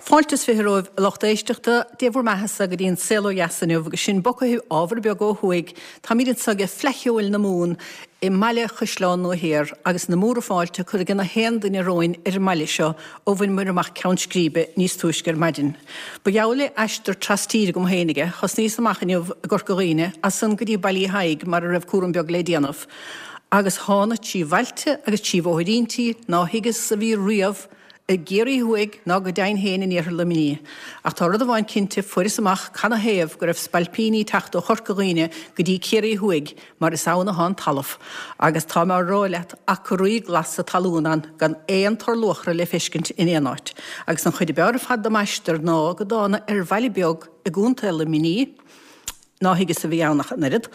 Fáilte is 20 romhaibh a lucht éisteachta, Dé bhur mbeathasa go dtí an Saol Ó Dheas inniu agus sinn bogtha ábhar beag ó thuaidh. Táimid anseo ag Fleadh Cheoil na Mumhan i mbaile Chaisleán Nua Thiar agus na múra fáilte curtha ag na haon duine romhainn ar an mbaile seo ó bhain muid amach Ceann Scríbe níos túisce ar maidin. Ba gheall le aistear tras-tíre agam féinig é. Thosnaíos amach inniu i gCorca Dhuibhne, as san go dtí Baile Uí Thaidhg mar a raibh cúram beag le déanamh. Agus thána trí bhailte agus trí bhóithríntí ná thuigeas a bhí riamh i gCiarraí Thuaidh ná go deimhin féin in iarthar Luimnigh. Ach tá rud amháin cinnte, fuaireas amach canathaobh go raibh spailpíní ag teacht ó Chorca Dhuibhne go dtí Ciarraí Thuaidh, mar is ann athá an talamh. Agus tá mé á rá leat, acraí glasa talún ann gan aon tor luachra le feiscint in aon áit. Agus an chuid ab fhearr ar fad de m'aistear ná go dtána ar bhaile beag i gContae Luimnigh, ná thuigeas a bhí ann ach an oiread,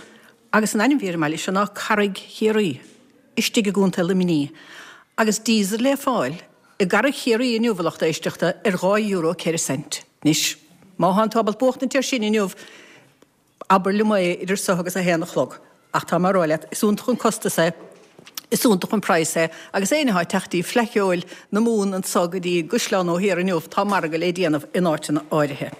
agus an ainm bhí ar an mbaile seo ná Carraig Chiarraí. istigh i gContae Luimnigh, agus diesel le fáil i gCarraig Chiarraí inniu, a lucht éisteachta, ar €2 ceithre cent. Anois, má thánn tú ábalta buachtaint air sin inniu, abair liom é idir so agus a haon a chlog. Ach tá mé a rá leat, is iontach an costas é, is iontach an praghas é, agus éinne atá ag teacht dtí Fleadh Cheoil na Mumhan anso go dtí an gCaisleán Nua Thiar inniu, tá margadh le déanamh in áiteanna áirithe.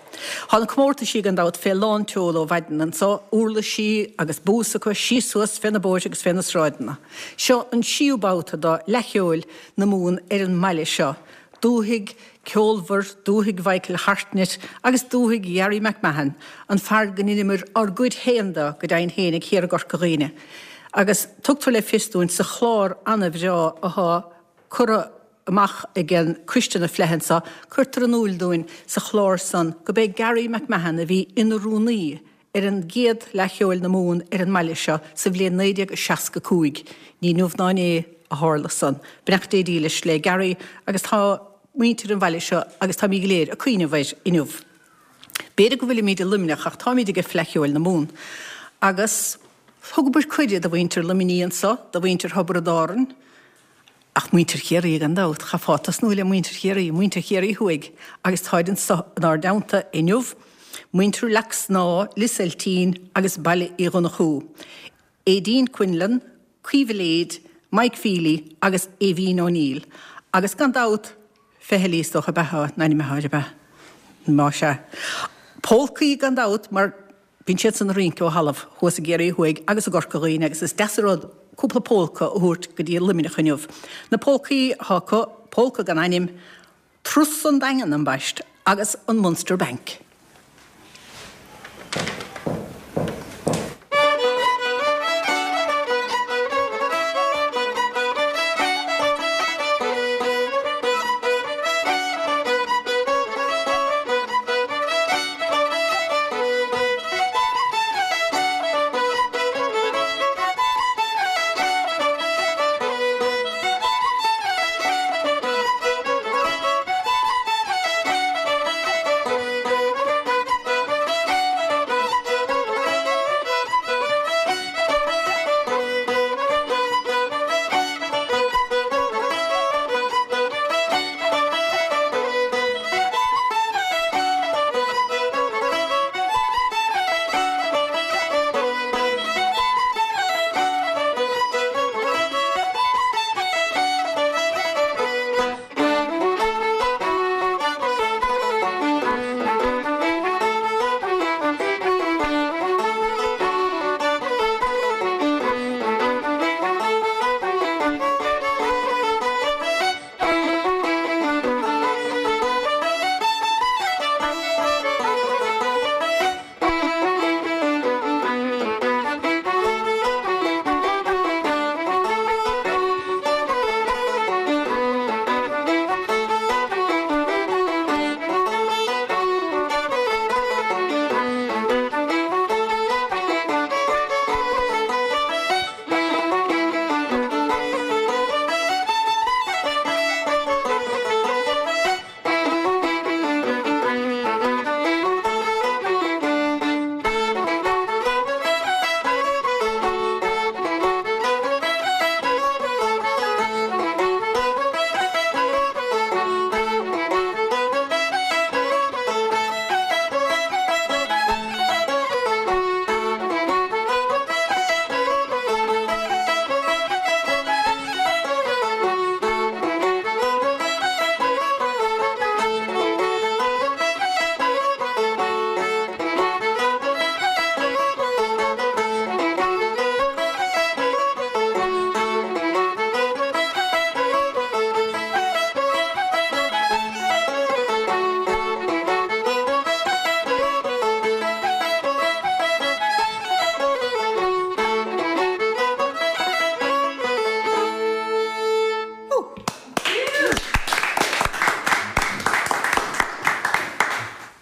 Tá na comórtaisí gan dabht fé lán tseoil ó mhaidin anso, uirlisí agus bús acu síos suas fé na bóithre agus fé na sráideanna. Seo an seíú babhta do Fhleadh Cheoil na Mumhan ar an mbaile seo, dúthaigh ceolmhar, dúthaigh Mhichael Hartnett agus dúthaigh Gharry McMahon, an fear go ndeineamair ár gcuid féin de go deimhin féinig thiar i gCorca Dhuibhne. Agus tugtar le fios dúinn sa chlár ana-bhreá athá curtha amach ag an Coiste na Fleidhe anso, cuirtear in úil dúinn sa chlár san go b'é Garry McMahon a bhí ina rúnaí ar an gcéad Fhleadh Cheoil na Mumhan ar an mbaile seo sa bhliain 1965. Ní inniu ná inné a tharla san. Beannacht Dé dílis le Garry agus tá muintir an bhaile seo agus táimid go léir ag cuimhneamh air inniu. B'fhéidir go bhfuilimid i Luimneach ach táimid ag Fleadh Cheoil na Mumhan. Agus thugamair cuireadh do mhuintir Luimnigh anso, do mhuintir Thiobraid Árann, Ach muintir Chiarraí gan dabht, chaithfeá tosnú le muintir Chiarraí, muintir Chiarraí Thuaidh, agus táid anso inár dteannta inniu, muintir Leac Snámha, Lios Eiltín agus Baile Uí Dhonnchú, Aideen Quinlan, Caoimhe Lade, Mike Feely agus Aoibhín O'Neill. Agus gan dabht, Feithilí is dócha ab ea a n-ainm atá air, ab ea? Más ea. Pólcaí gan dabht, mar Bíonn siadsan ag rince ó thalamh thuas i gCiarraí Thuaidh agus i gCorca Dhuibhne agus is deas an rud cúpla pólca a thabhairt go dtí Luimneach inniu. Na pólcaí atá acu, Pólca gan Ainm, Turas an Daingean ambaist agus an Munster Bank.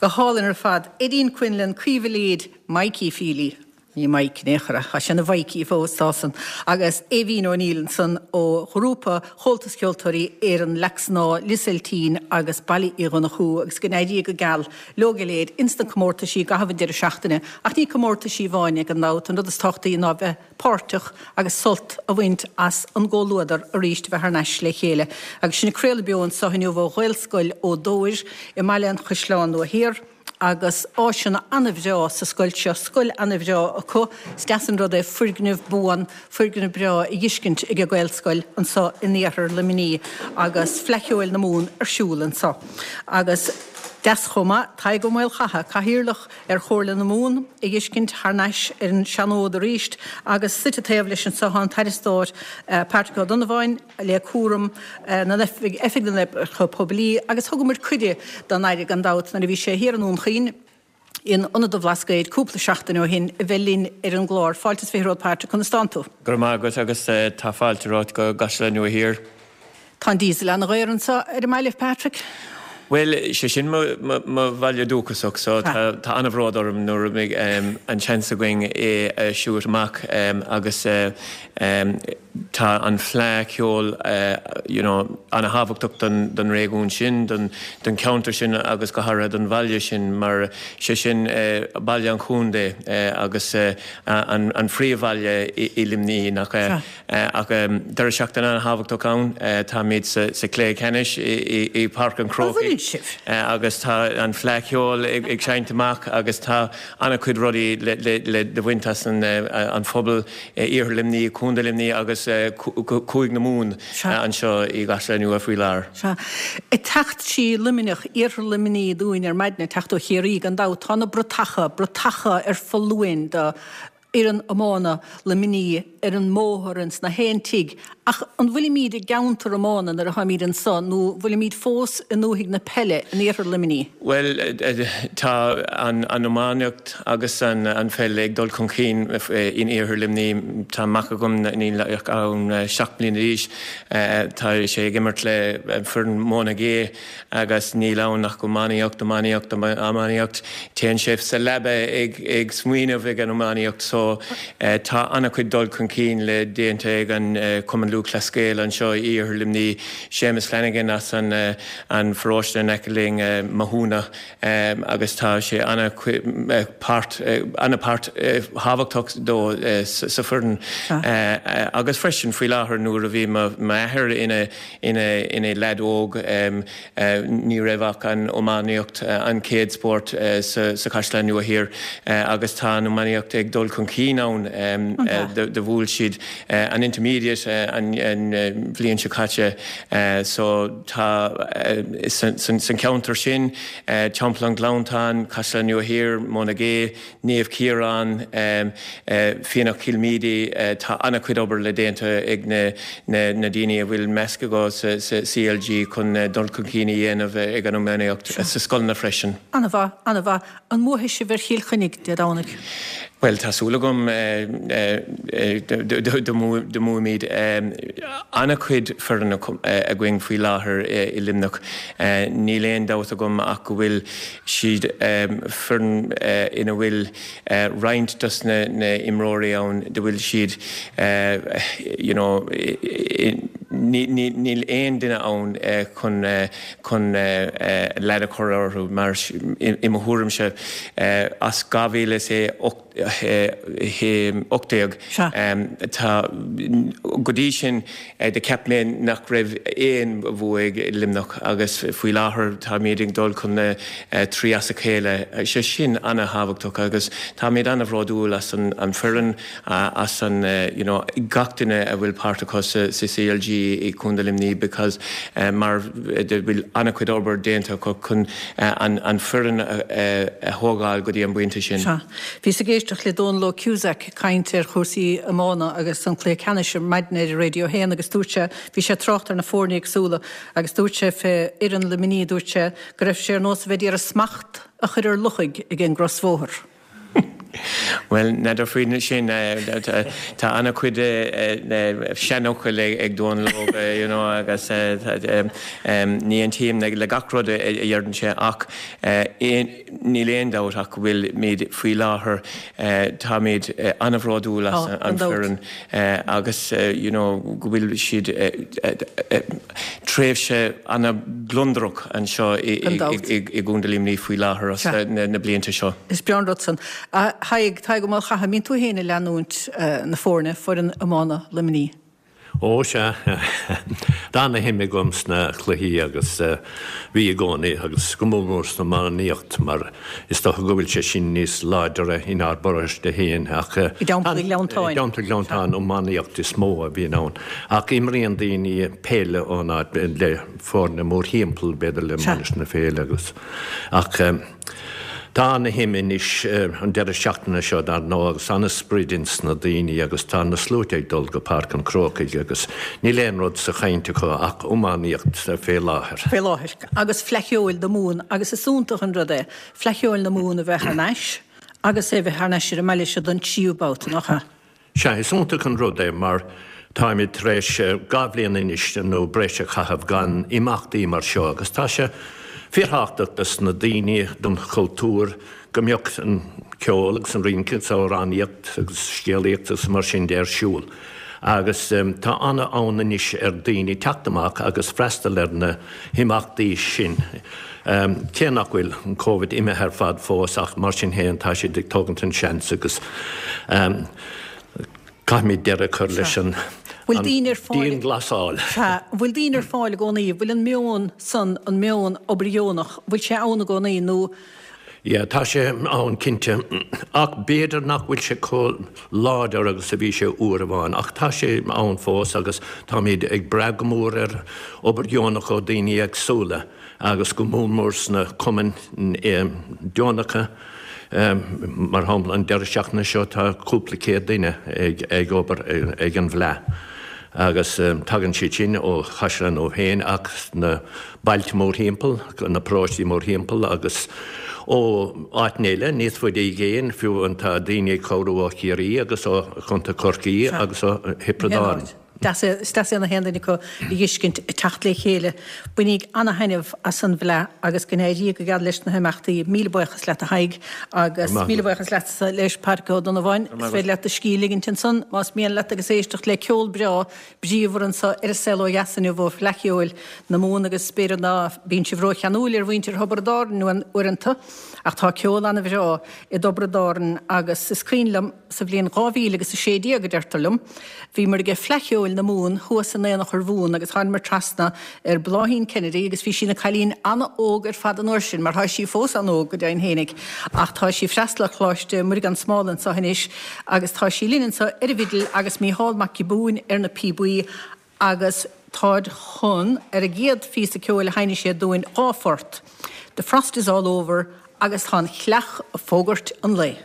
Go hálainn ar fad. Eddín Quinlan, Caoimhe Leaid, Mikey Feely, ní Mike in aon chor é, tá sé ina Mhikey fós, tá san, agus Aoibhín O'Neill ansan ó ghrúpa Chomhaltas Ceoltóirí Éireann Leac Snáth, Lios Eiltín agus Baile Uí Dhonnchú agus go n-éirí go geal leo go léir ins na comórtaisí i gcaitheamh an deireadh seachtaine. Ach ní comórtaisí amháin é gan dabht, an rud is tábhachtaí ná bheith páirteach agus sult a bhaint as an gcomhluadar arís a bheith thar n-ais le chéile. Agus sinn ag craoladh beo anso inniu ó Ghaelscoil Ó Dómhair i mBaile an Chaisleáin Nua Thiar agus áiseanna ana-bhreá sa scoil seo, scoil ana-bhreá acu. Is deas an rud é foirgneamh buan, foirgneamh breá a dh'fheiscint ag an Ghaelscoil anso in iarthar Luimnigh agus Fleadh Cheoil na Mumhan ar siúl anso. Agus deas chomh maith, Tadhg Ó Maolchatha, Cathaoirleach ar Chomhairle na Mumhan a dh'fheiscint thar n-ais ar an seanfhód arís agus suite taobh leis anso tá an tAire Stáit Patrick Ó Donnabháin le cúram na Oifig na nOibreacha Poiblí agus thugamar cuireadh don Aire gan dabht nuair a bhí sé thiar i nDún Chaoin in Ionad an Bhlascaoid cúpla seachtain ó shin a bheith linn ar an gclár. Fáilte is 20 romhat Patrick, conas tánn tú? Go raibh maith agat agus tá fáilte romhat go gCaisleán Nua Thiar. Tá an diesel ana-dhaor anseo ar an mbaile, Patrick. Bhuel, sé sin mo bhaile dúchasach so tá an-bhród orm nuair a bheidh an seans againn é a shoot amach agus tá an fleadh cheoil you know ana-thábhachtach don réigiún sin, don cheantar sin agus go háirithe don bhaile sin mar sé sin baile an chontae agus an phríomhbhaile i Luimnigh nach ea? Ach deireadh seachtaine an-thábhachtach ann. Táimid sa chluiche ceannais i bPáirc an Chrócaigh agus tá an Fleadh Cheoil ag seinnt amach agus tá an-chuid rudaí le baint as an phobal Iarthar Luimnigh, Contae Luimnigh agus Cúige na Mumhan anseo i gCaisleán Nua faoi láthair. Sea. Ag teacht trí Luimneach, Iarthar Luimnigh dúinn ar maidin, ag teacht ó Chiarraí gan dabht, tá na bratacha, bratacha ar foluain do fhoireann iomána Luimnigh ar an mbóthar ins na haon tigh ach an bhfuilimíd i gceantar iomána nuair a tháimíd anso nó bhfuilimíd fós i ndúthaigh na peile in iarthar Luimnigh? Bhuel, tá an iománaíocht agus an pheil ag dul chun cinn in iarthar Luimnigh. Tá mac agam, níl ach 7 mbliana d'aois, tá sé ag imirt le foireann Monagea Agus níl ann ach iománaíocht, iománaíocht, iománaíocht. Téann sé sa leaba ag smaoineamh ag an iománaíocht so tá an-chuid dul chun cinn le déanta ag an Cumann Lúthchleas Gael anseo i Iarthar Luimnigh. Séamus Flanagan as an pharóiste in aice linn, Mathúna, agus tá sé an-páirt, an-páirt thábhachtach dó sa foireann. Agus freisin faoi láthair nuair a bhí m'athair ina Ina leaid óg ní raibh ach an iománaíocht an chéad spórt sa Chaisleán Nua Thiar agus tá an iománaíocht ag dul chun cinn ann. Do bhuail siad an intermediate an bhliain seo caite so tá san cheantar sin, Teampall an Ghleanntáin, Caisleán Nua Thiar, Monagea, Naomh Ciarán, Fíonach Chill Míde, tá an-chuid obair le déanta ag na daoine a bhfuil measc acu sa CLG chun dul chun cinn a dhéanamh ag an iománaíocht sa scoileanna freisin. An-mhaith, an-mhaith. An mbuafaidh sibh ar Chill Chainnigh Dé Domhnaigh? Bhuel, tá súil agam do mbuafaimid. An-chuid foireann againn faoi láthair i Luimneach. Níl aon dabht agam ach go bhfuil siad foireann ina bhfuil roinnt dos na imreoirí ann do bhfuil siad you know níl aon duine ann chun chun lead a chur orthu mar i mo thuairimse as 2008 18. Tá, go dtí sin do cheap mé nach raibh aon bhua ag Luimneach agus faoi láthair táimid ag dul chun na 3 as a chéile. Sé sin ana-thábhachtach agus táimid ana-bhródúil as an foireann, as an you know gach duine a bhfuil páirt acu sa CLG i Contae Luimnigh because mar do bhfuil ana-chuid obair déanta acu chun an foireann a thógáil go dtí an bpointe sin. Sea. Bhíos ag éisteacht le Dónal Ó Cusack ag caint ar chúrsaí iomána agus an cluiche ceannais ar maidin ar Radio 1 agus dúirt sé, bhí sé ag trácht ar na foirne éagsúla agus dúirt sé fé fhoireann Luimnigh, dúirt sé go raibh sé ar nós a bheith ag iarraidh smacht a chur ar luchaig ag an gcrosbhóthar. Bhuel, n'fheadar faoin sin, tá an-chuid seanfhocail ag Dónal Óg, you know, agus ní aontaím le gach rud a dheireann sé ach níl aon dabht ach go bhfuilimid faoi láthair, táimid an-bhródúil as an foireann agus, you know, go bhfuil siad tréimhse an-ghliondrach anseo i gContae Luimnigh faoi láthair as na blianta seo. Is breá an rud san. A Thaidhg, Tadhg Ó Maolchatha, an mbíonn tú féin ag leanúint na foirne, foireann iomána Luimnigh? Ó, sea. Tá ana-shuim agam sna cluichí agus bhí i gcónaí agus go mór mór san iománaíocht mar is dócha go bhfuil sé sin níos láidre inár bparóiste féin ach I dTeampall Ghleanntáin. I dTeampall Ghleanntáin iománaíocht is mó a bhíonn ann ach imríonn daoine peil ón áit le foirne mórthimpeall b'fhéidir le Mainistir na Féile agus ach Tá ana-shuim anois an deireadh seachtaine seo dar ndóigh agus ana-sprid ins na daoine agus tá na sluaite ag dul go Páirc an Chrócaigh agus níl aon rud sa chaint acu ach iománaíocht fé láthair. Fé láthair. Agus Fleadh Cheoil na Mumhan agus is iontach an rud é Fleadh Cheoil na Mumhan a bheith thar n-ais agus é a bheith thar n-ais ar an mbaile seo don tríú babhta, nach ea? Sea, is iontach an rud é mar táimid tar éis 2 bhliain anois nó breis a chaitheamh gan imeachtaí mar seo agus tá sé fíorthábhachtach dos na daoine, don chultúr, go mbeadh an ceol agus an rince agus amhránaíocht agus scéalaíocht agus mar sin de ar siúl. Agus tá an-fhonn anois ar daoine teacht amach agus freastal ar na himeachtaí sin. Cé nach bhfuil an Covid imithe ar fad fós ach mar sin féin tá siad ag tógaint an seans agus caithfimid deireadh a chur leis an dianghlasáil. Sea. An bhfuil daoine ar fáil i gcónaí? An bhfuil an meon san, an meon obair dheonach, an bhfuil sé ann i gcónaí nó? Yeah, tá sé ann cinnte ach b'fhéidir nach bhfuil sé chomh láidir agus a bhí sé uair amháin ach tá sé ann fós agus táimid ag brath go mór ar obair dheonach ó daoine éagsúla. agus go mór mór sna cumainn deonacha. Mar shampla, an deireadh seachtaine seo tá cúpla céad duine ag obair ag an bhFleadh agus tagann siad sin ó Chaisleán Nua féin ach sna bailte mórthimpeall, na paróistí mórthimpeall agus ó áiteanna eile níos faide i gcéin, fiú tá daoine ag cabhrú ó Chiarraí agus ó Chontae Chorcaí agus ó Thiobraid Árann. Deas é, is deas é na haon duine acu a dh'fheiscint ag teacht le chéile. Bainíg ana-thaitneamh as an bhFleadh agus go n-éirí go geal leis na himeachtaí. Míle buíochas leat a Thaidhg agus míle buíochas leatsa leis Pádraic Ó Donnabháin. Is féidir leat do scíth a ligint ansan más mian leat agus éisteacht le ceol breá bríomhar anso ar An Saol Ó Dheas inniu ó Fhleadh Cheoil na Mumhan agus b'fhéidir ná bíonn sibh ró-cheanúil ar mhuintir Thiobraid Árann uaireanta ach tá ceol ana-bhreá i dTiobraid Árann agus is cuimhin liom Sa bhliain 2000 agus 16, a deirtear liom, bhíomar ag Fleadh Cheoil na Mumhan thuas in Aonach Urmhumhan agus thánamar trasna ar Bláithín Kennedy agus bhí sí ina cailín an-óg ar fad an uair sin, mar tá sí fós an-óg go deimhin fhéinig, ach tá sí ag freastal ar Choláiste Muire Gan Smál anso anois agus tá sí linn anso ar an bhfidil agus Mícheál Mac Giobúin ar na píobaí agus táid chun, ar an gcéad phíosa ceoil a sheinnfidh siad dúinn, 2 phort, The Frost is All Over agus Tá an Chleach ag Fógairt an Lae.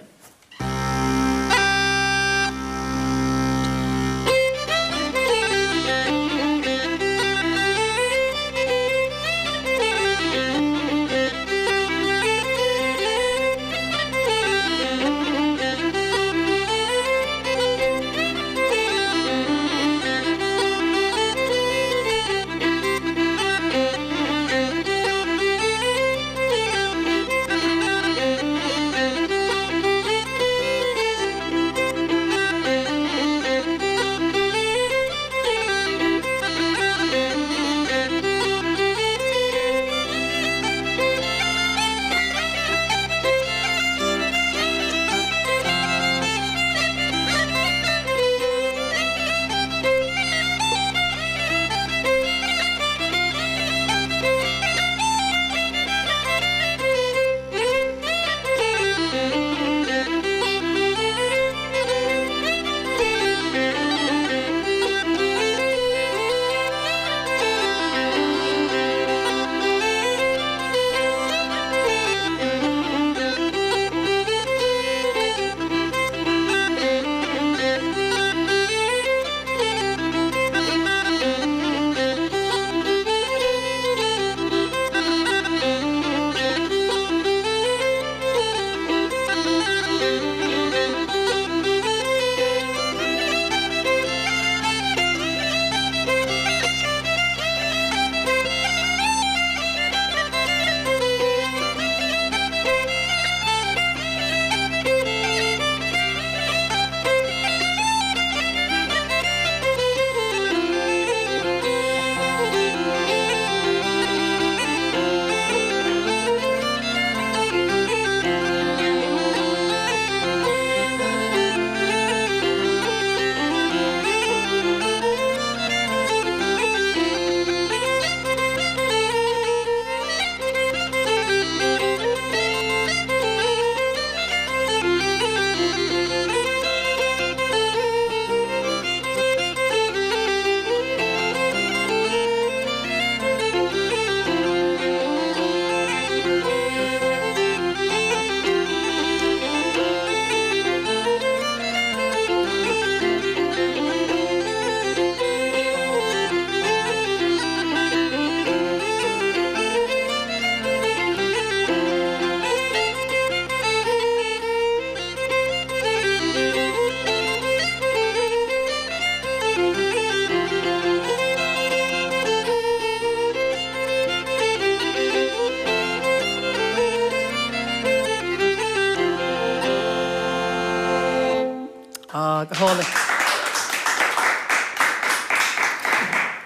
Ah, go hálainn.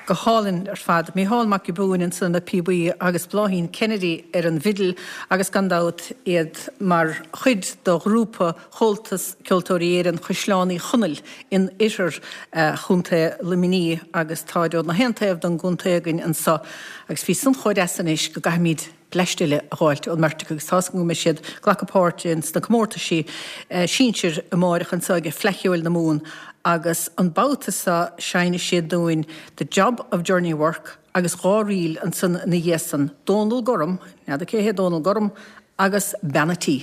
Go hálainn ar fad. Mícheál Mac Giobúin ansan ar na píobaí agus Bláithín Kennedy ar an bhfidil agus gan dabht iad mar chuid de ghrúpa Chomhaltas Ceoltóirí Éireann Chaisleán Uí Chonaill in oirthear Chontae Luimnigh agus táid ó na haon taobh den gcontae againn anso agus bhí san chomh deas anois go gcaithfimid bleaist eile a dh'fháilt ón mbeirt acu agus tá's agam go mbeidh siad ag glacadh páirte ins na comórtaisí sinsir amáireach anso ag Fleadh Cheoil na Mumhan agus an babhta seo seinnfidh siad dúinn The Job of Journey Work agus dha ríl ansan ina dhiaidh san, Dónal Gorm, n'fheadar cé hé Dónal Gorm, agus Bean a' Tí.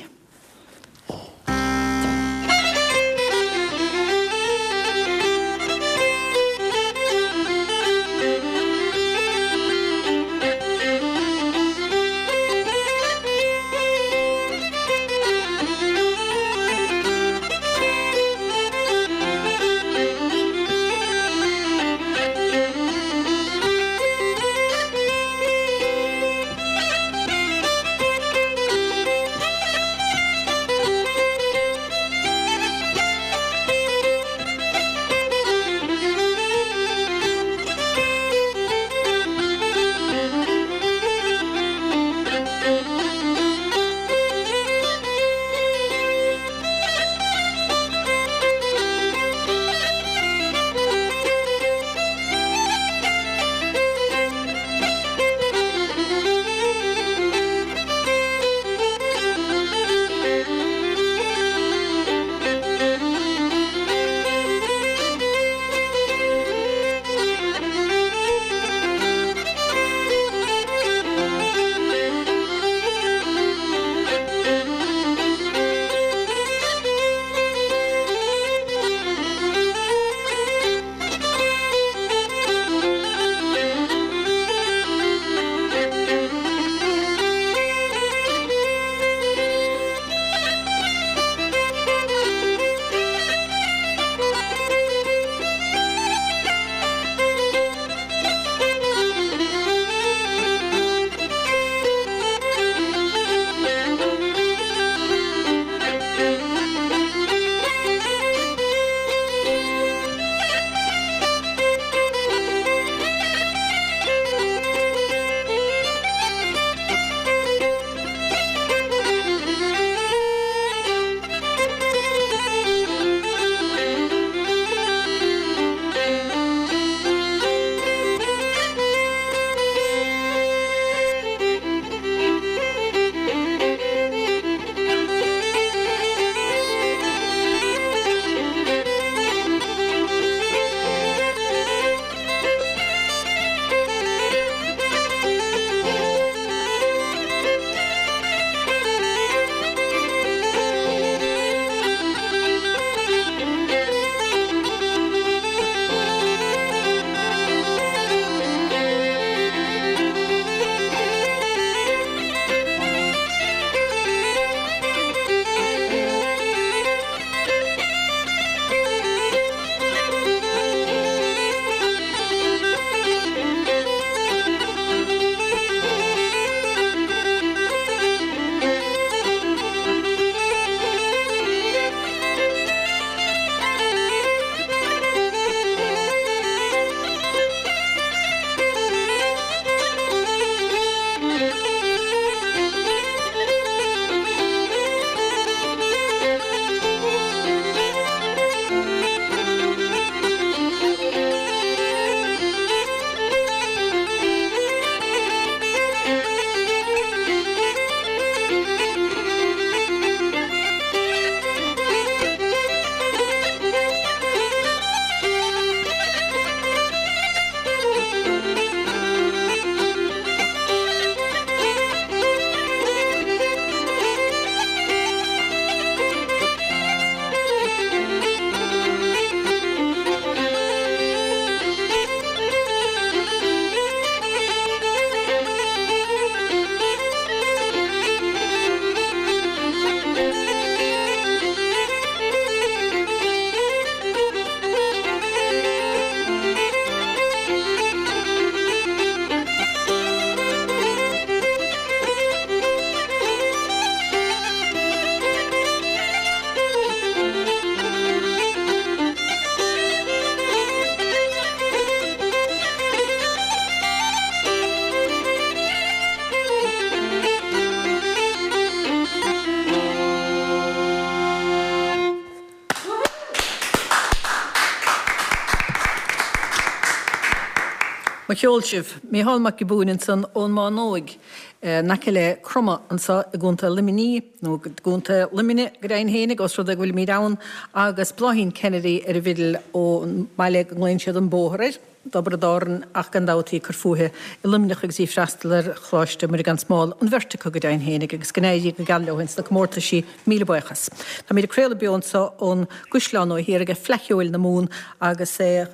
Mo cheol sibh. Mícheál Mac Giobúin ansan ón mBánóig, in aice le Cromadh anso i gContae Luimnigh, nó i gContae Luimnigh go deimhin fhéinig, os rud é go bhfuilimíd ann, agus Bláithín Kennedy ar an bhfidil ón mbaile go nglaonn siad an Bóthar air, dTiobraid Árann ach gan dabht í ag cur fúithi i Luimneach agus í ag freastal ar Choláiste Muire Gan Smál, an bheirt acu go deimhin fhéinig, agus go n-éirí go geal leo ins na comórtaisí. Míle buíochas. Táimíd ag craoladh beo anso ón gCaisleán Nua Thiar ag Fleadh Cheoil na Mumhan agus é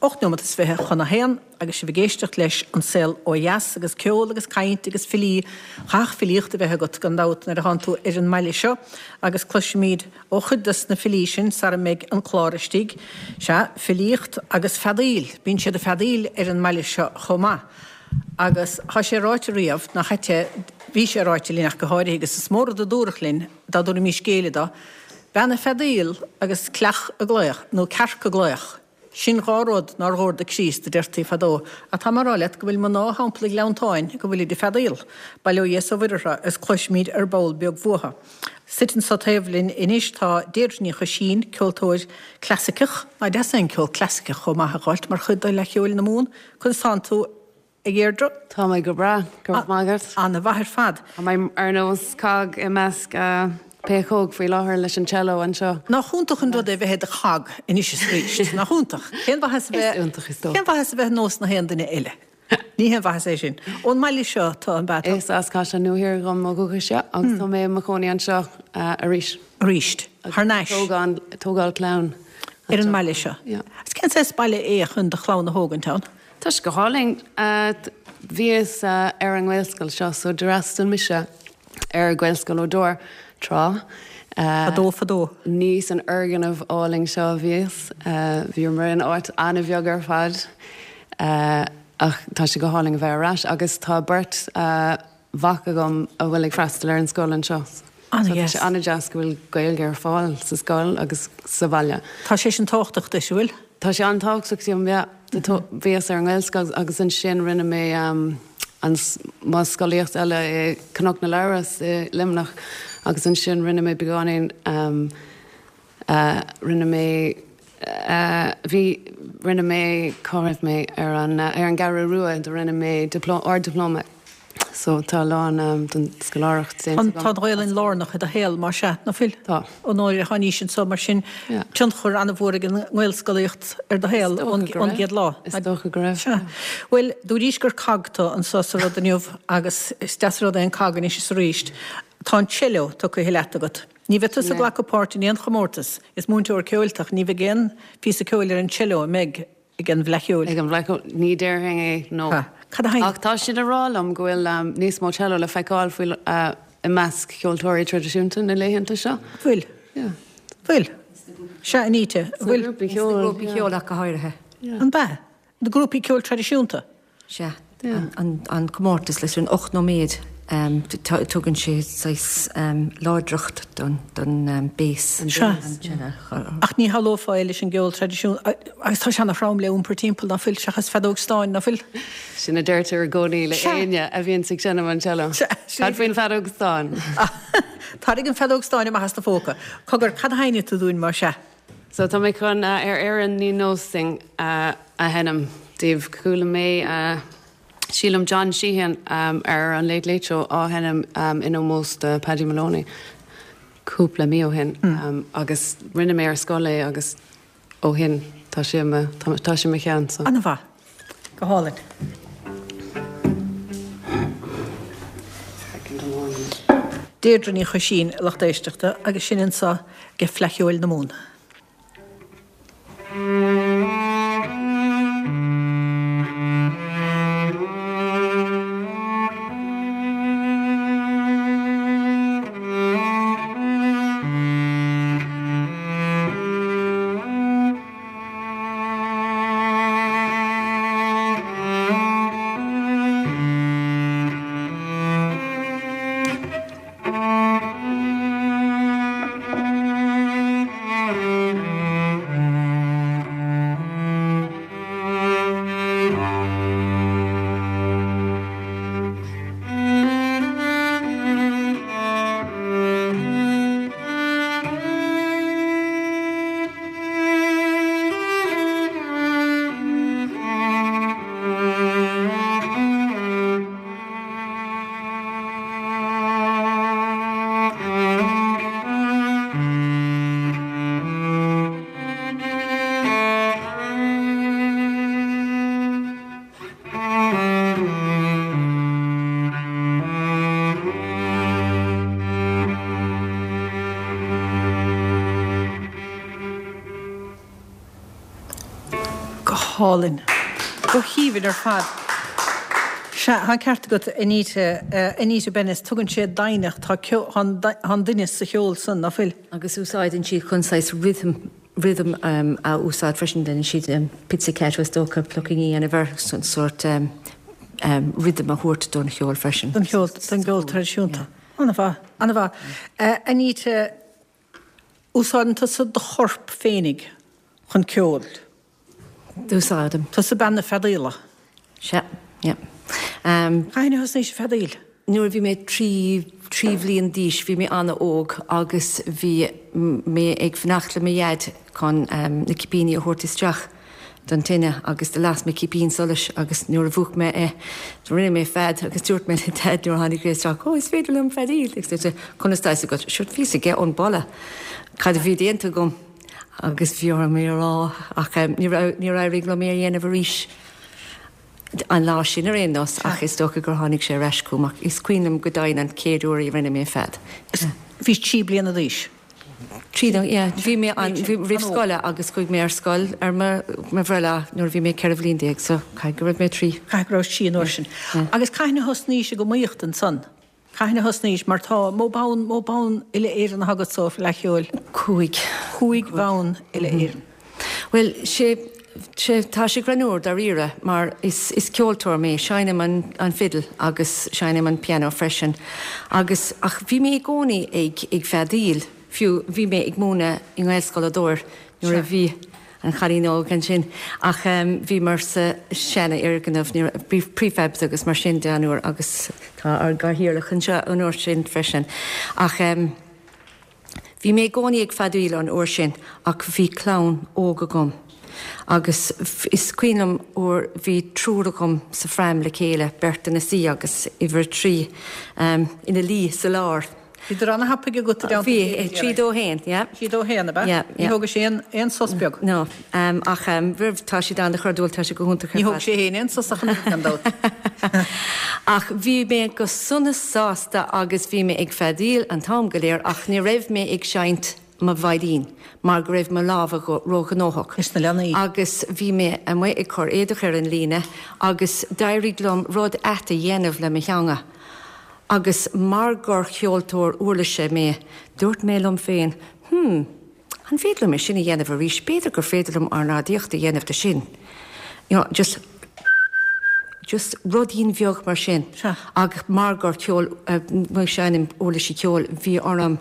8 neomat is 20 chun a haon agus sibh ag éisteacht leis An Saol Ó Dheas agus ceol agus caint agus filí, chaithfeadh filíocht a bheith agat gan dabht nuair a thánn tú ar an mbaile seo agus cloisfimid ó chuid dos na filí sin sara mbeidh an clár istigh. Sea, filíocht agus feadaíl, bíonn siad ag feadaíl ar an mbaile seo chomh maith agus thá sé ráite riamh, nach ait é, bhí sé ráite linn ach go háirithe agus is mó rud a dúradh linn dá dtabharfaimís géilleadh dó, bean ag feadaíl agus cleach ag glaoch, nó cearc ag glaoch. Sin 2 rud nár dhóir do Chríost, a deirtí fadó, ach tá mé a rá leat go bhfuil mná thimpeall an Ghleanntáin go bhfuilid ag feadaíl. Bail ó Dhia is ó Mhuire orthu, agus cloisfimid ar ball beag uathu. Suite anso taobh linn anois tá Deirdre Ní Choisín, ceoltóir clasaiceach. Nach deas é an ceol clasaiceach chomh maith a dh'fháilt mar chuid de Fhleadh Cheoil na Mumhan? Conas tánn tú? A Dheirdre? Tá mé go breá, go raibh maith agat. Ana-mhaith ar fad. Tá mé ar nós cog i measc péacóg faoi láthair leis an cello anseo. Nach iontach an rud é bheith i do chog anois is arís, nach iontach? Cén mhaitheas a bheith. Is iontach is dócha. Cén mhaitheas a bheith nós na haon duine eile? Ní haon mhaitheas é sin. Ón mbaile seo tú, an b'ea? Is as Caisleán Nua Thiar dhom ó dhúchas, yeah, agus tá mé i mo chónaí anseo arís. Arís. Thar n-ais. Tógáil clann. Ar an mbaile seo. Yeah. Agus cén saghas baile é chun do chlann a thógaint ann? Tá sé go hálainn. Bhíos ar an nGaelscoil seo so d'fhreastail mise ar Ghaelscoil O'Dor tráth. Fadó fadó. Ní san fhoirgneamh álainn seo a bhíos. Bhíomar in áit an-bheag ar fad. Ach tá sé go hálainn a bheith ar ais agus tá beirt mhac agam a bhfuil ag freastal ar an scoil anseo. So tá sé an-deas go bhfuil Gaeilge ar fáil sa scoil agus sa bhaile. Tá sé sin tábhachtach duit, an bhfuil? Tá sé an-tábhachtach dom, yeah. Bhíos ar an nGaelscoil agus ansin rinne mé an mo scolaíocht eile i Cnoc na Labhras i Luimneach agus ansin rinne mé beagáinín Rinne mé, bhí, rinne mé, cá raibh mé, ar an, ar an gCeathrú Rua, do rinne mé dioplóma, ard-dioplóma. So tá a lán den scoláireacht déanta agam. Tá an Ghaelainn lárnach i do shaol, más ea, ná fuil? Tá. Ó nuair a tháinís anso, mar sin, tionchar an-mhór ag an nGaelscolaíocht ar do shaol ón gcéad lá. Is dócha go raibh. Sea. Bhuel, dúraís gur cog tú anso sa rud inniu agus is deas an rud é an cog anois is arís. Tá an cello tugtha leat agat. Ní bheidh tusa ag glacadh páirt in aon chomórtas, is múinteoir ceoil tú ach ní bheidh aon phíosa ceoil ar an cello an mbeidh ag an bhFleadh Cheoil? Ag an bhFleadh Cheoil? Ní déarfainn é, no. Ha. Cad a Ach tá siad ag rá liom go bhfuil níos mó cello le feiceáil faoi i measc cheoltóirí traidisiúnta na laethanta seo. Bhfuil? Yeah. Bhfuil? Sea, Anita, bhfuil? Sna grúpaí ceoil. Sna grúpaí ceoil ach go háirithe. An b'ea? Na grúpaí ceoil traidisiúnta? Sea. An comórtas leis an 8 nóiméad, tugann sé saghas láidreacht don bass. Sea. Ach ní shamhlófá é leis an gceol traidisiúnta, agus tá sé ana-throm le iompar timpeall, ná fuil, seachas feadóg stáin, ná fuil? Sin a deirtear i gcónaí le éinne a bhíonns ag seinm an cello. Cad faoin bhfeadóg stáin? Tarraing an feadóg stáin amach as do phóca. Cogar, cad a sheinnfidh tú dúinn, más ea? So tá mé chun Ar Éirinn Ní Nós Sinn a sheinm daoibh. Chuala mé, sílim, John Sheahan ar an Late Late Show á sheinm in ómós do Paddy Moloney cúpla mí ó shin agus rinne mé ar scoil é agus ó shin tá sé i mo, tá sé i mo cheann so. An-mhaith. Go hálainn. Deirdre Ní Choisín, a lucht éisteachta, agus sinn anso ag Fleadh Cheoil na Mumhan. hálainn. Go haoibhinn ar fad. Sea, tá an ceart agat, Anita, Anita Bennis, tugann sé doimhneacht, tá tá an doimhneas sa cheol san, ná fuil? Agus úsáideann siad chun saghas rhythm, rhythm a úsáid freisin, déanann siad pizzicato is dócha, plucking a dhéanamh air, sórt rhythm a thabhairt don cheol freisin. Don cheol, don gceol traidisiúnta. An-mhaith, an-mhaith. Anita, úsáideann tusa do chorp féinig chun ceoil. Úsáidim. Tusa bean na feadaíola. Sea, yeah. Cathain a thosnaís ag feadaíl? Nuair a bhí mé 3, 3 bhliain d'aois, bhí mé an-óg agus bhí mé ag fanacht le mo dhaid chun na cipíní a thabhairt isteach don tine agus do las mé cipín solais agus nuair a mhúch mé é, rinne mé fead agus dúirt mé le Daid nuair a tháinig sé isteach, 'Ó, is féidir liom feadaíl! Agus dúirt sé, 'Conas tá fhios agat? Sure, bhí fhios aige ón boladh cad a bhí déanta agam agus bhí orm é a rá ach níor éirigh liom é a dhéanamh arís an lá sin ar aon nós ach is dócha gur tháinig sé ar ais chugam ach is cuimhin liom go deimhin an chéad uair a rinne mé fead. Bhís 3 bliana d'aois? 3 nó, yeah, bhí mé an, bhí, roimh scoile agus chuaigh mé ar scoil ar mo, mo bhreithlá nuair a bhí mé 14 bhliain so caithfidh go raibh mé 3. Caithfidh go raibh 3 an uair sin. Agus cathain a thosnaís ag iomaíocht ansan? Cathain a thosnaís? Mar tá, mó bonn, mó bonn uile-Éireann atá agat sa Fhleadh Cheoil? 5. 5 bhonn uile-Éireann. Bhuel, sé, sé, tá sé greannmhar dáiríre mar is, is ceoltóir mé, seinnim an, an fidil agus seinnim an pianó freisin agus, ach bhí mé i gcónaí ag, ag feadaíl, fiú bhí mé ag múineadh i nGaelscoil Ó Dobhair nuair a bhí an chailín óg ansin ach bhíomar sa seanfhoirgneamh, ní raibh, bhí prefabs agus mar sin de an uair agus tá ár gcathaoirleach anseo an uair sin freisin ach bhí mé i gcónaí ag feadaíl an uair sin ach bhí clann óg agam agus is cuimhin liom uair bhí triúr agam sa phram le chéile, beirt ina suí agus uimhir a 3 ina luí sa lár. Bhíodar ana-thapaidh agat i dteannta a chéile, Bhí, 3, 2, 1, yeah. 3, 2, 1, ab ea? Yeah, yeah. Ní thógadh sé aon, aon sos beag? No, ach roimh, tá siad ana-chairdiúil, tá siad go hiontach ar fad. Ní thóg sé fhéin aon sos ach an oiread, gan dabht. Ach bhí mé go sona sásta agus bhí mé ag feadaíl an t-am go léir ach ní raibh mé ag seinnt mo veidhlín mar go raibh mo lámha róghnóthach. Leis na leanaí. Agus bhí mé amuigh ag cur éadach ar an líne agus d'éirigh liom rud ait a dhéanamh le mo theanga. Agus mar gur cheoltóir uirlise mé, dúirt mé liom féin, 'Hmm, an féidir liom é sin a dhéanamh arís? B'fhéidir gur féidir liom ornáidíocht a dhéanamh de sin. You know, just, just ruidín bheag mar sin. Sea. Ach mar gur ceol, mar seinnim uirlisí ceoil, bhí orm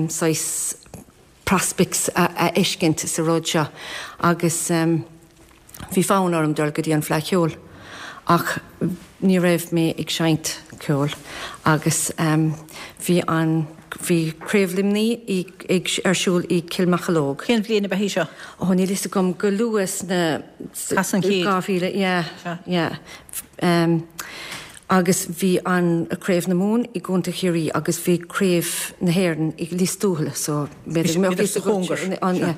saghas prospects a fheiscint sa rud seo agus bhí fonn orm dul go dtí an Fleadh Cheoil ach ní raibh mé ag seinnt ceoil agus bhí an bhí Craobh Luimní ag ar siúl i Cill Mocheallóg. Cén bhliain ab ea í seo? Ó níl fhios agam, go luath sna Pas an chéid. 2000, yeah, yeah. Agus bhí an Craobh na Mumhan i gContae Chiarraí agus bhí Craobh na hÉireann i Lios Tuathail so b'fhéidir go mbeadh fhios agat an yeah.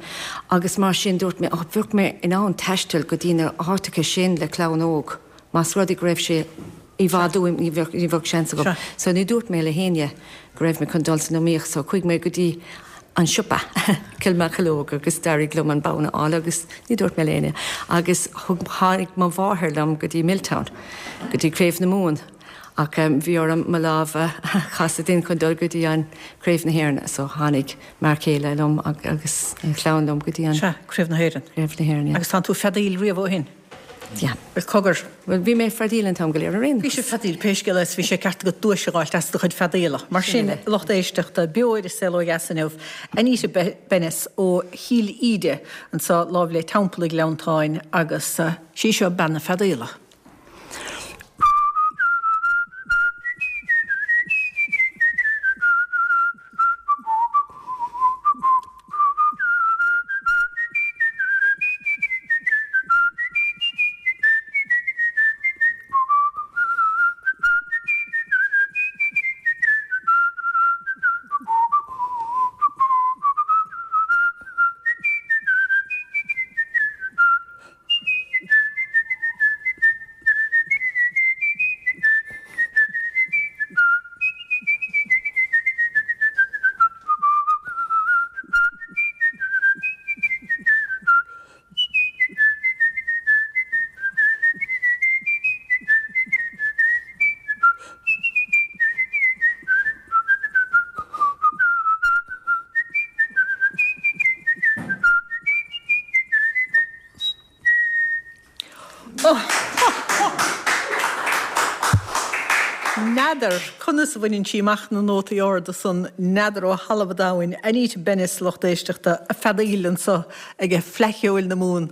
Agus mar sin dúirt mé oh bheadh mé in ann taisteal go dtí na háiteacha sin le clann óg más rud é go raibh sé i bhfad uaim ní bheadh ní bheadh seans agam. So ní dúirt mé le héinne go raibh mé chun dul san iomaíocht so chuaigh mé go dtí an siopa, Cill Mocheallóg agus d'éirigh liom an bonn a fháil agus ní dúirt mé le héinne agus thug, tháinig mo mháthair liom go dtí Milltown, go dtí Craobh na Mumhan ach bhí orm mo lámh a chasadh dinn chun dul go dtí an Craobh na hÉireann so tháinig m'fhear céile liom agus an chlann liom go dtí an. Sea, Craobh na hÉireann. Craobh na hÉireann, yeah. Agus tánn tú ag feadaíl riamh ó shin? Yeah. Bhuel, cogar. Bhuel, bhí mé ag feadaíl an t-am go léir ar aon nós. Bhí sibh ag feadaíl, pé scéal é, is bhí sé ceart agat duais a dh'fháilt as do chuid feadaíola. Mar sin, lucht éisteachta, beo ar An Saol Ó Dheas inniu, Anita Bennis ó Chill Íde, anseo láimh le Teampall an Ghleanntáin, agus sí seo bean na feadaíola. N'fheadar conas a bhaineann sí amach na nótaí arda san, n'fheadar ó thalamh an domhain. Anita Bennis, lucht éisteachta, ag feadaíl anso ag Fleadh Cheoil na Mumhan.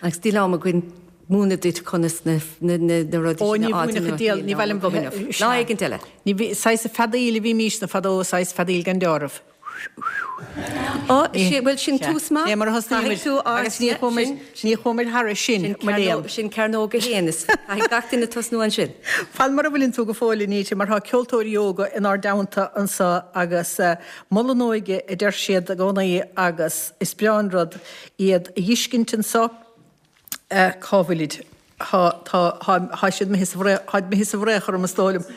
Agus níl am againn múineadh duit conas na rudaí sin a fháil. Ó, ní mhúinfeadh an diabhal, ní mhaith liom. Lá éigint eile. Ní bhí, saghas feadaíl a bhímísne fadó, saghas feadaíl gan deáramh. Ó, bhuel, sin tús maith. Ní mar a thosnaímid agus ní chuamar, ní chuamar thairis sin, mo léan. Sin cearnóg a haon, is caithfidh gach duine tosnú ansin. Fan mar a bhfuileann tú go fóill, Anita, mar tá ceoltóirí óga inár dteannta anso agus mol an óige a deir siad i gcónaí agus is breá an rud iad a dh'fheiscint anso. Cá bhfuilid? Tá, tá, tá, tá siad imithe sa bhfraoch, táid imithe sa bhfraoch orm is dóigh liom.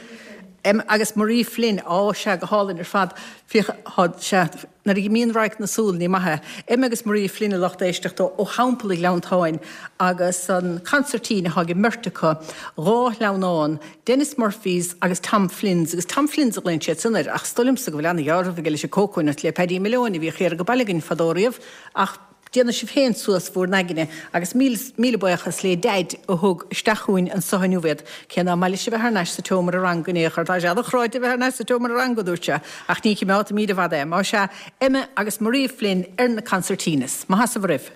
Em agus Marie Flynn, á, sea, go hálainn ar fad. Féach, tá, sea, nuair a imíonn radharc na súl, ní maith é. Emma agus Marie Flynn a lucht éisteachta ó Theampall an Ghleanntáin agus an consairtín atá ag an mbeirt acu, 2 shleamhnán, Denis Murphy's agus Tom Flynn's, agus Tom Flynn's a ghlaonn siad san air, ach is dóigh liomsa go bhfuil ana-dheáramh aige leis an cócónut le Paddy Malone a bhíodh thiar ag baile againn fadó riamh, ach. Déanfaidh sibh féin suas bhúr n-aigne agus míle, míle buíochas lé Daid a thug isteach chugainn anso inniu iad, cé ná maith leis a bheith thar n-ais sa tseomra ranga in aon chor. Tá sé ana-chráite a bheith thar n-ais sa tseomra ranga, a dúirt sé, ach ní chimeádfaimíd i bhfad é. Má sea, Emma agus Maria Flynn ar na concertinas. Maith as a bhur raibh.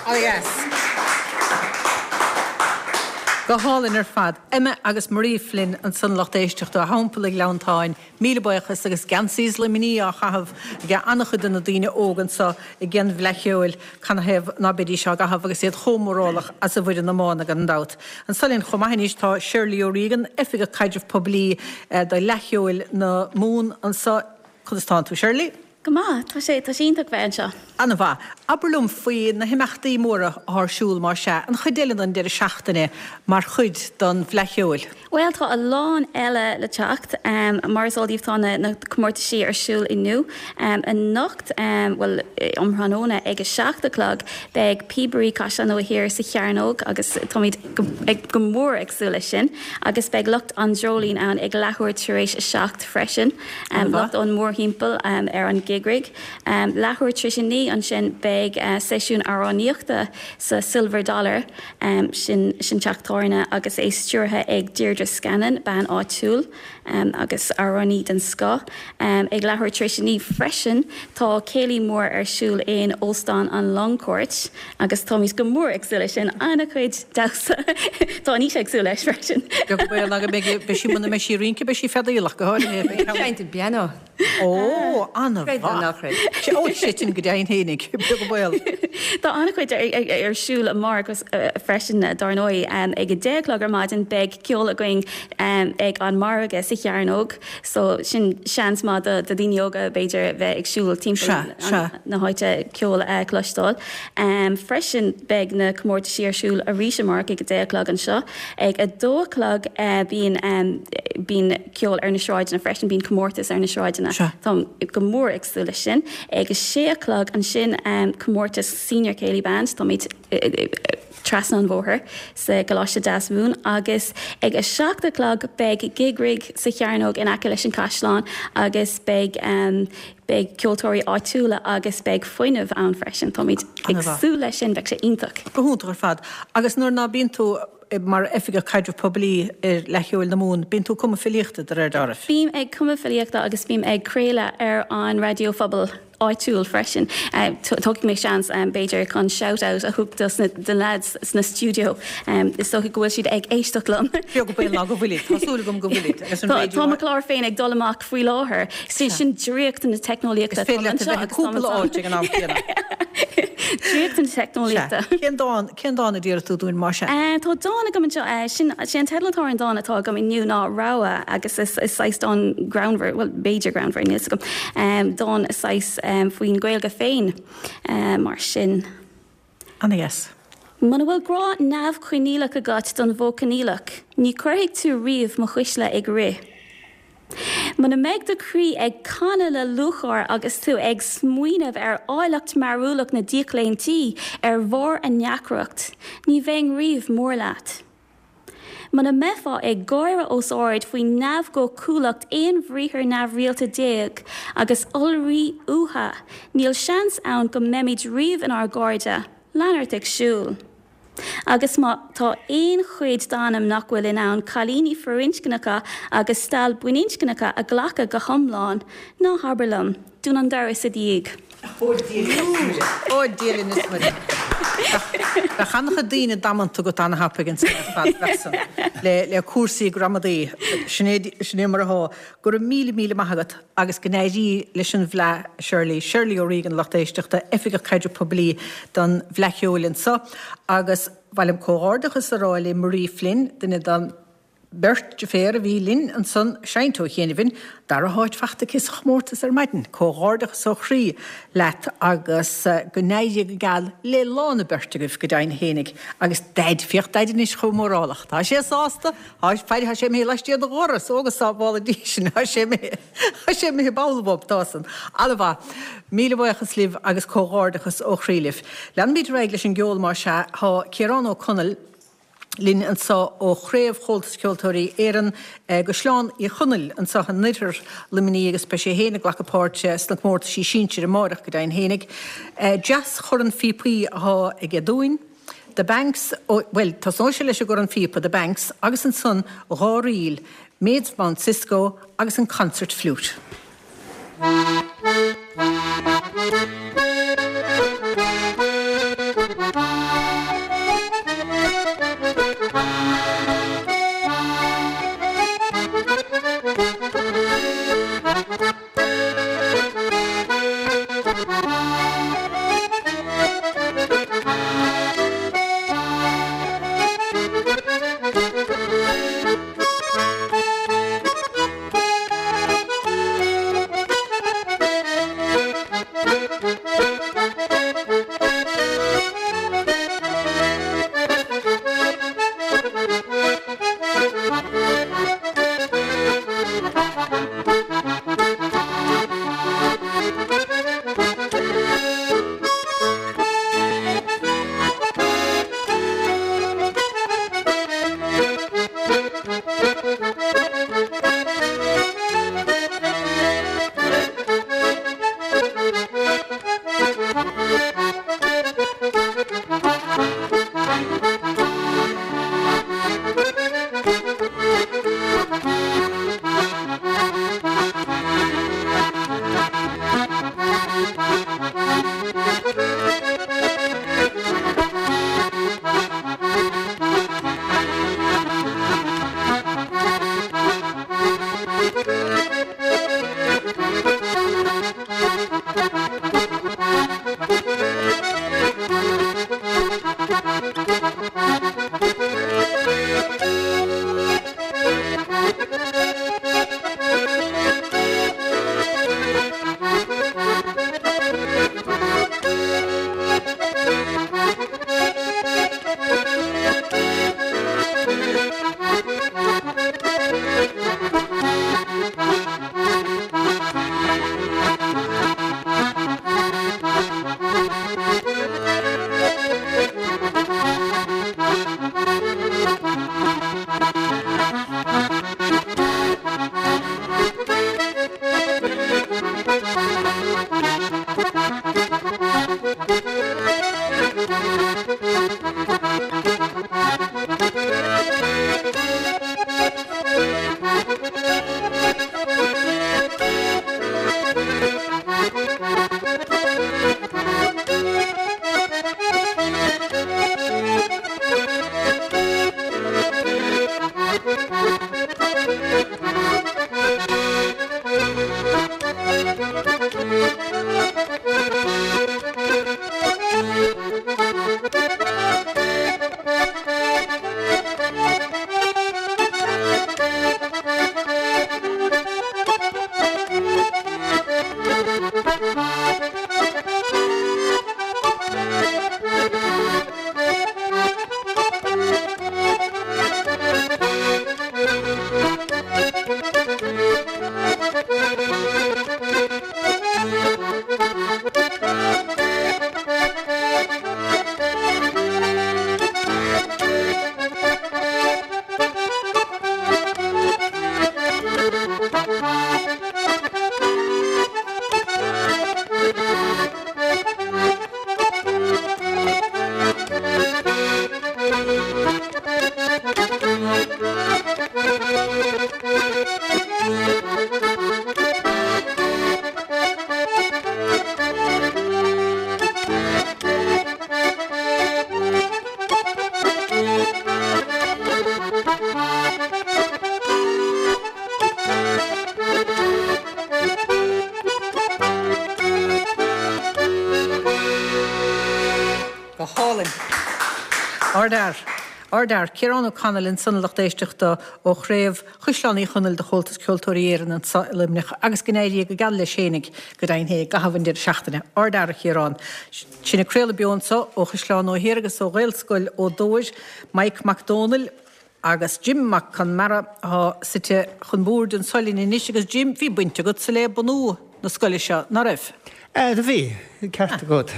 Oh yes. Go hálainn ar fad. Emma agus Marie Flynn ansan lucht éisteachta ó Theampall an Ghleanntáin. Míle buíochas agus geansaí Luimnigh á chaitheamh ag an-chuid de na daoine óga anso ag an bhFleadh Cheoil. Canathaobh ná beidís á gcaitheamh agus iad chomh mórálach as a bhfoireann iomána gan dabht. Anso linn chomh maith anois tá Shirley O'Regan, Oifigeach Caidrimh Poiblí do Fhleadh Cheoil na Mumhan anso. Conas tánn tú Shirley? Go maith. Tá sé, tá sé iontach bheith anseo. An-mhaith. Abair liom faoi na himeachtaí móra atá ar siúl, más ea, an chuid eile den deireadh seachtaine mar chuid den Fhleadh Cheoil. Bhuel, tá a lán eile le teacht. Mar is eol daoibh tá na comórtaisí ar siúl inniu. Anocht, bhuel, um thráthnóna ag a 7 a chlog, beidh Píobairí Chaisleán Nua Thiar sa Chearnóg agus táimid go mór ag súil leis sin. Agus beidh lucht an Dreoilín ann ag leathuair tar éis a 7 freisin. Lucht ón mórthimpeall ar an gig rig. Leathuair tar éis a 9 ansin beidh seisiún amhránaíochta sa Silver Dollar, sin sin teach tábhairne agus é stiúrtha ag Deirdre. Deirdre Scanlon, bean áitiúil agus amhránaí den scoth. Ag leathuair tar éis a 9 freisin tá céilí mór ar siúl in Óstán an Longcourt agus táimid go mór ag súil leis sin. An-chuid damhsa. Tá Anita ag súil leis freisin. Beag baol ná go mbeidh, beidh sí, muna mbeidh sí ag rince beidh sí ag feadaíl ach go háirithe. Ag seinnt an pianó. Ó, an-mhaith. Creid nó ná creid. Ó, sé sin go deimhin fhéinig, beag an baol. Tá an-chuid ar siúl amárach freisin, dár ndóigh. Ag 10 a chlog ar maidin beidh ceol againn ag an margadh sa Chearnóg, so sin seans maith do dhaoine óga b'fhéidir bheith ag siúl timpeall na háite ceol a chloisteáil. Freisin beidh na comórtaisí ar siúl arís amárach ag 10 a chlog anseo. Ag 2 a chlog bíonn bíonn ceol ar na sráideanna freisin, bíonn comórtas ar na sráideanna. Táim go mór ag súil leis sin. Ag a sé a chlog ansin comórtas Senior Céilí Band, táimid trasna an bhóthair sa gColáiste Deasmhumhan agus ag a 7 a chlog beidh Gig Rig sa Chearnóg in aice leis an Caisleán agus beidh beidh ceoltóirí áitiúla agus beidh fuinneamh ann freisin. Táimid ag súil leis sin, beidh sé iontach. Go hiontach ar fad. Agus nuair ná bíonn tú mar Oifigeach Caidreamh Poiblí ar Fhleadh Cheoil na Mumhan, bíonn tú ag cumadh filíochta, de réir dealraimh. Bím ag cumadh filíochta agus bím ag craoladh ar an raidió phobail áitiúil freisin. Tógfaidh mé seans, b'fhéidir, chun shout out a thabhairt dos na lads sna stiúideo. Is dócha go bhfuil siad ag éisteacht liom. Beag an baol ná go bhfuilid. Tá súil agam go bhfuilid. Agus an raidió. Tá mo chlár féin ag dul amach faoi láthair. Sin draíocht na teicneolaíochta. Is féidir leat a bheith i gcúpla áit ag an am céanna. Draíocht na teicneolaíochta. Sea. Cén dán, cén dán a d'iarr tú dúinn, más ea? Tá dán agam anseo. Sin, sé an teideal atá ar an dán atá agam inniu ná Rogha agus is saghas dán greannmhar, bhuel, b'fhéidir greannmhar, níl 'fhios agam, dán saghas faoin Ghaeilge féin, mar sin. Ana-dheas. Muna bhfuil grá neamhchoinníollach agat don mhodh coinníollach, ní chuirfidh tú riamh mo chuisle ag rith. Muna mbeidh do chroí ag canadh le lúcháir agus tú ag smaoineamh ar áilleacht mearúlach na díochlaontaí ar bharr a ndeacracht, ní bheinn riamh mór leat. Muna mbeifeá ag gáire os ard faoi neamhdhóchúlacht aon bhriathar neamhrialta déag agus iolraí uatha, níl seans ann go mbeimid riamh inár gcairde, lean ort ag siúl. Agus má tá aon chuid d'anam nach bhfuil in ann cailíní firinscneacha agus stail baininscneacha a ghlacadh go hiomlán, ná habair liom, dún an doras i do dhiaidh. Ó Dia linn is Muire. Bheadh an-chuid daoine damanta agat an-thapaidh ansan ar fad, bheadh san, le cúrsaí gramadaí. Sin é mar atá. Go raibh míle míle maith agat agus go n-éirí leis an bhFleadh, a Shirley. Shirley O'Regan, lucht éisteachta, Oifigeach Caidrimh Poiblí don bhFleadh Cheoil anso. Agus ba mhaith liom comhghairdeachas a rá le Marie Flynn, duine den bheirt deirféar a bhí linn ansan ag seinnt ó chianaibh, dara háit fachta aici sa chomórtas ar maidin. Comhghairdeachas ó chroí leat agus go n-éirí go geal le lá na beirt agaibh go deimhin fhéinig. Agus Daid, féach Daid anois chomh mórálach. Tá sé sásta, Tá, faire, tá sé imithe laistiar de dhoras, ó go sábhála Dia sinn, tá sé imithe, tá sé imithe ball bhob, tá san. An-mhaith. Míle buíochas libh agus comhghairdeachas ó chroí libh. Leanfaimid ar aghaidh leis an gceol más ea. Tá Ciarán Ó Conaill linn anseo ó Chraobh Chomhaltas Ceoltóirí Éireann i gCaisleán Uí Chonaill anseo in oirthear Luimnigh agus beidh sé féin ag glacadh páirte sna comórtaisí sinsir amáireach go deimhin fhéinig. Deas-chorn phíopaí atá aige dúinn. The Banks, bhuel, tosnóidh sé leis an gcorn phíopa, The Banks, agus ansan 2 ríl, Maids of Mount Cisco agus an Concert Flute. Go hálainn. Ardfhear. Ardfhear. Ciarán O'Connell ansan a lucht éisteachta ó chraobh Chaisleán Uí Chonaill de Chomhaltas Ceoltóirí Éireann anso i Luimneach agus go n-éirí go geal leis fhéinig go deimhin fé i gcaitheamh an deireadh seachtaine. Ardfhear a Chiaráin. Sinn ag craoladh beo anso ó Chaisleán Nua Thiar agus ó Ghaelscoil Ó Dobhair, Maidhc Mac Dónaill agus Jim Mac Conmara atá suite chun boird anso linn anois agus Jim, bhí baint agatsa le bunú na scoile seo, ná raibh? Do bhí, ceart agat.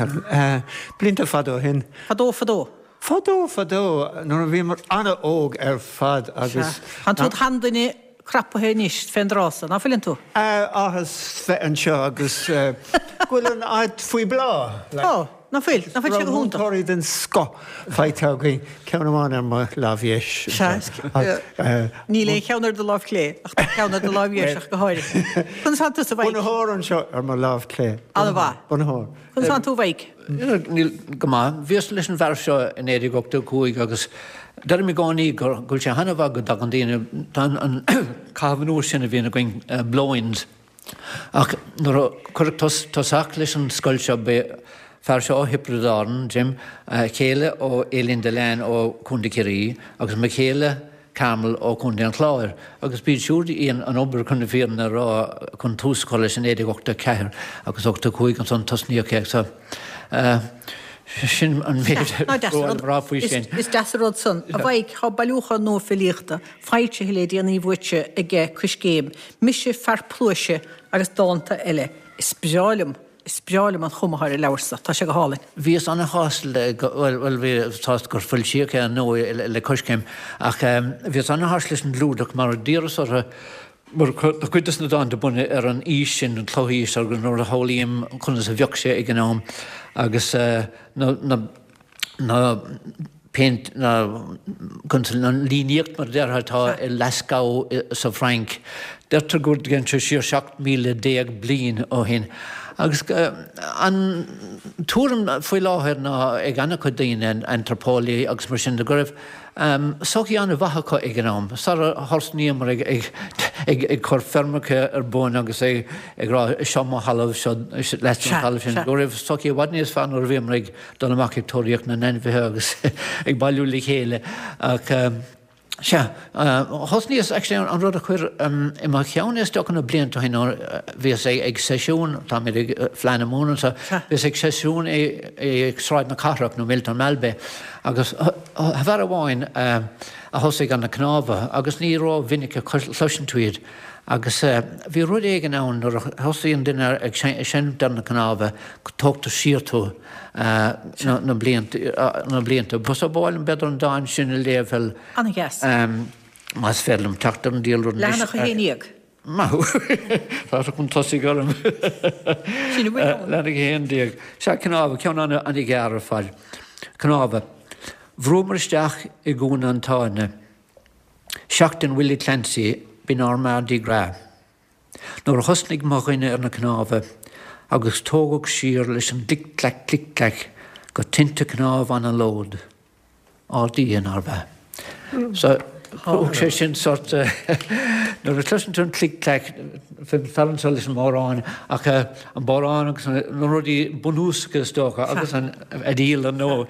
Blianta fada ó shin. Fadó fadó. Fadó fadó nuair a bhíomar an-óg ar fad agus. Sea. Tánn tú id sheanduine crapaithe anois fén dtráth so, ná fuileann tú? Áthas bheith anseo agus go bhfuil an áit faoi bhláth. Tá, ná fuil? Ná fuil sé go hiontach? Múinteoirí den scoth faighte againn, ceann amháin ar mo lámh dheis. Sea, níl aon cheann ar do lámh chlé ach tá ceann ar do lámh dheis ach go háirithe. Conas tánn tusa, a Mhaidhc? Bunaitheoir anseo ar mo lámh chlé. An-mhaith. Bunaitheoir. Conas tánn tú, a Mhaidhc? Níl, go maith. Bhíos leis an bhfear seo i 1985 agus deirim i gcónaí go bhfuil sé an-mhaith go dtagann daoine, tá an caitheamh anuas sin a bhíonn againn, blow-ins. Ach nuair a cuireadh tosach leis an scoil seo b'é fear seo ó Thiobraid Árann, Jim, a chéile ó Aileen Dillane ó Chontae Chiarraí agus mo chéile, Carmel ó Chontae an Chláir, agus b'iad siúd a dhein an obair chun na fírinne a rá chun tús a chur leis in 1984 agus 85 ansan tosnaíodh é so sin an méid a raibh le rá faoi sin. Is deas an rud san. A Mhaidhc, tá bailiúchán nua filíochta foilsithe le déanaí uaitse aige Coiscéim, Mise Fear Pluaise agus Dánta Eile. Is breá liom Is breá liom an chuma atá ar an leabhar so. Tá sé go hálainn. Bhíos ana-shásta le, bhuel, bhuel, bhíos sásta gur foilsíodh é ar ndóigh le Coiscéim, ach bhíos ana-shásta leis an gclúdach mar d'iarras orthu, mar tá cuid de na dánta bunaithe ar an aois sin, an chlochaois, agus nuair a shamhlaím conas a bheadh sé ag an am agus na, na, na péint, na, an líníocht mar a déarfá atá i Lascaux sa Bhfrainc. Deirtear go dtéann sé siar 17,000 bliain ó shin. Agus an tuairim faoi láthair ná ag an-chuid daoine, antraipeolaithe agus mar sin de, go raibh sochaí an-mhaith acu ag an am, sara thosnaíomar ag cur feirmeacha ar bun agus ag rá seo mo thalamh, seo leat an talamh sin, go raibh sochaí i bhfad níos fearr nuair a bhíomar ag dul amach ag tóraíocht na n-ainmhithe agus ag bailiú le chéile. Ach. Sea. Thosnaíos, actually, an rud a chuir i mo cheann é is dócha na blianta ó shin nuair a bhíos ag seisiún, táimid ag Fleadh na Mumhan anseo, bhíos ag seisiún i Sráid na Cathrach nó Miltown Malbay agus fear amháin a thosaigh ar na cnámha agus ní ró-mhinic a chloiseann tú iad agus bhí rud éigin ann nuair a thosaíonn duine ag seinnt ar na cnámha go dtógtar siar tú na blianta. So ba mhaith liom b'fhéidir an dán sin a léamh bhuel An-dheas. más féidir liom teacht ar an diabhal rud anois. Leathanach 11. Maith thú. Tá tú chun tosaigh orm. Sin a bhfuil ann. Leathanach 11. Sea, cnámha, ceann an-ghearr ar fad. Cnámha. Bhrúamar isteach i gcúinne an tsáinne. Seachtain Willie Clancy, b'in ár Mardi Gras. Nuair a thosnaigh mo dhuine ar na cnámha agus tógadh siar leis an gclic clac clic clac go tinte cnámh anallód. Ár Dia, nárbh ea? So, thug sé sin sort nuair a chloiseann tú an clic clac, fear anseo leis an mbodhrán ach an bodhrán agus na rudaí bunúsacha is dócha agus an fhidil ar ndóigh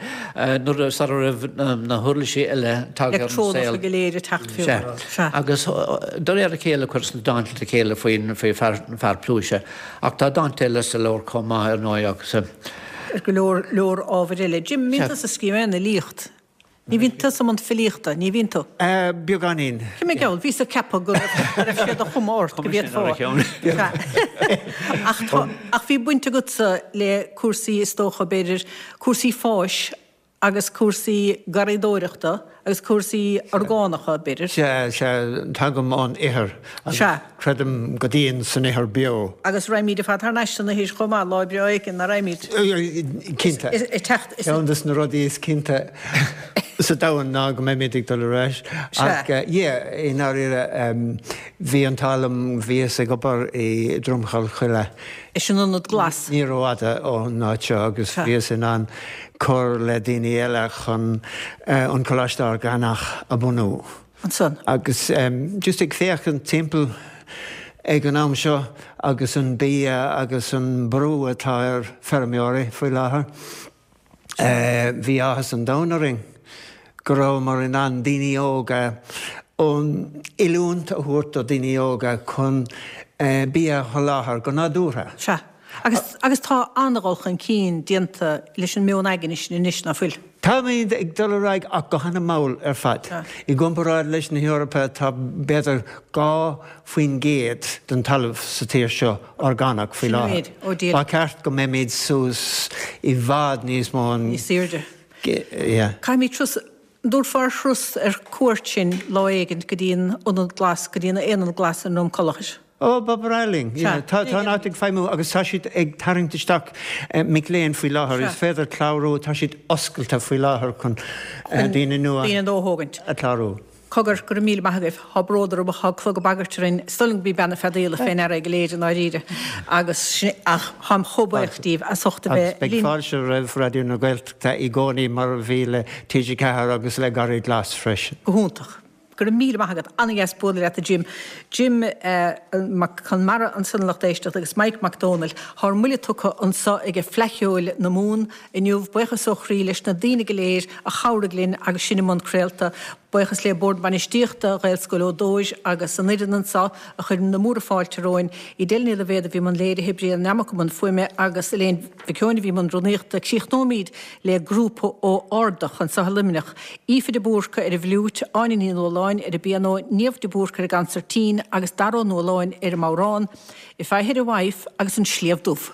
nuair a sara raibh na huirlisí eile tagtha ar an saol. Leictreonacha go léir ag teacht fiú. Sea. Agus de réir a chéile chuireas na dánta le chéile faoin faoi fear pluaise ach tá dánta eile sa leabhar chomh maith ar ndóigh agus. Ar go leor leor ábhair eile. Jim, an mbíonn tusa ag scríobh aon fhilíocht? Ní bhíonn tusa i mbun filíochta, ní bhíonn tú? Beagáinín. Cé mé gheall, bhíos ag ceapadh go raibh sé de chuma ort go bhféadfá. Ach tá, ach bhí baint agatsa le cúrsaí is dócha, b'fhéidir, cúrsaí fáis agus cúrsaí garraíodóireachta agus cúrsaí orgánacha, b'fhéidir. Sea, sea, tagaim ón ithir agus creidim go dian san ithir beo. Agus raghaimid ar fad thar n-ais san ithir chomh maith, lá breá éigin, nach raghaimid? Cinnte. Ceann de na rudaí is cinnte sa domhan ná go mbeimid ag dul ar ais. Ach, yeah, i ndáiríre, bhí an t-ádh liom, bhíos ag obair i Dromchal Choille. Is an Ionad Glas. Ní rófhada ón áit seo agus bhíos in ann cur le daoine eile chun an Coláiste Orgánach a bhunú. Ansan. Agus just ag féachaint timpeall ag an am seo agus an bia agus an brú atá ar feirmeoirí faoi láthair, bhí áthas an domhain orainn go rabhamar in ann daoine óga, an oiliúint a thabhairt do daoine óga chun bia a sholáthar go nádúrtha. Sea. Agus, agus tá an-dhul chun cinn déanta leis an meon aigne sin anois, ná fuil? Táimid ag dul ar aghaidh ach go hana-mhall ar fad. I gcomparáid leis na hEorpa tá b'fhéidir 2% den talamh sa tír seo orgánach faoi láthair. Ba cheart go mbeimid suas i bhfad níos mó. Níos airde. Caithfimid turas, an dtabharfá turas ar cuairt sinn lá éigint go dtí an Ionad Glas, go dtí an Aonad Glas i nDroim Conlach? Ó, ba bhreá linn. Yeah. Tá an áit ag feidhmiú agus tá siad ag tarraingt isteach mic léinn faoi láthair. Is féidir clárú, tá siad oscailte faoi láthair chun daoine nua daoine nua a thógaint. a chlárú. Cogar, go raibh míle maith agaibh. Thá bród orm ach thá clog ag bagairt orainn. Is dóigh liom go b'í bean na feadaíola fé ndeara é go léir i ndáiríre. Agus sin, ach táim chomh buíoch díbh as ucht a bheith linn. Agus beidh fáilte roimh Raidió na Gaeltachta i gcónaí mar a bhí le TG4 agus le Garraí Glas freisin. Go hiontach. Go raibh míle maith agat. An-dheas bualadh leat a Jim. Jim Mac Conmara ansan a lucht éisteachta agus Mike Mac Dónaill. Thá ár mbuille tugtha anso aige Fleadh Cheoil na Mumhan inniu. Buíochas ó chroí leis na daoine go léir a chabhraigh linn agus sinn i mbun craolta. Buíochas le Bord Bainistíochta Ghaelscoil Ó Dóis agus an fhoireann anso a chuir na múra fáilte romhainn. Edel Ní Loibhéad a bhí i mbun léirithe, Brian Nammock i mbun fuaime agus Elaine Mhic Eoin a bhí i mbun rúnaíochta. Críochnóimid le grúpa ó Ardach anso i Luimneach, Aoife de Búrca ar an bhfliúit, Áine Ní Nualláin ar an bpianó, Niamh de Búrca ar an gcansairtín agus Dara Ó Nualláin ar an mbodhrán, If I Had a Wife agus An Sliabh Dubh.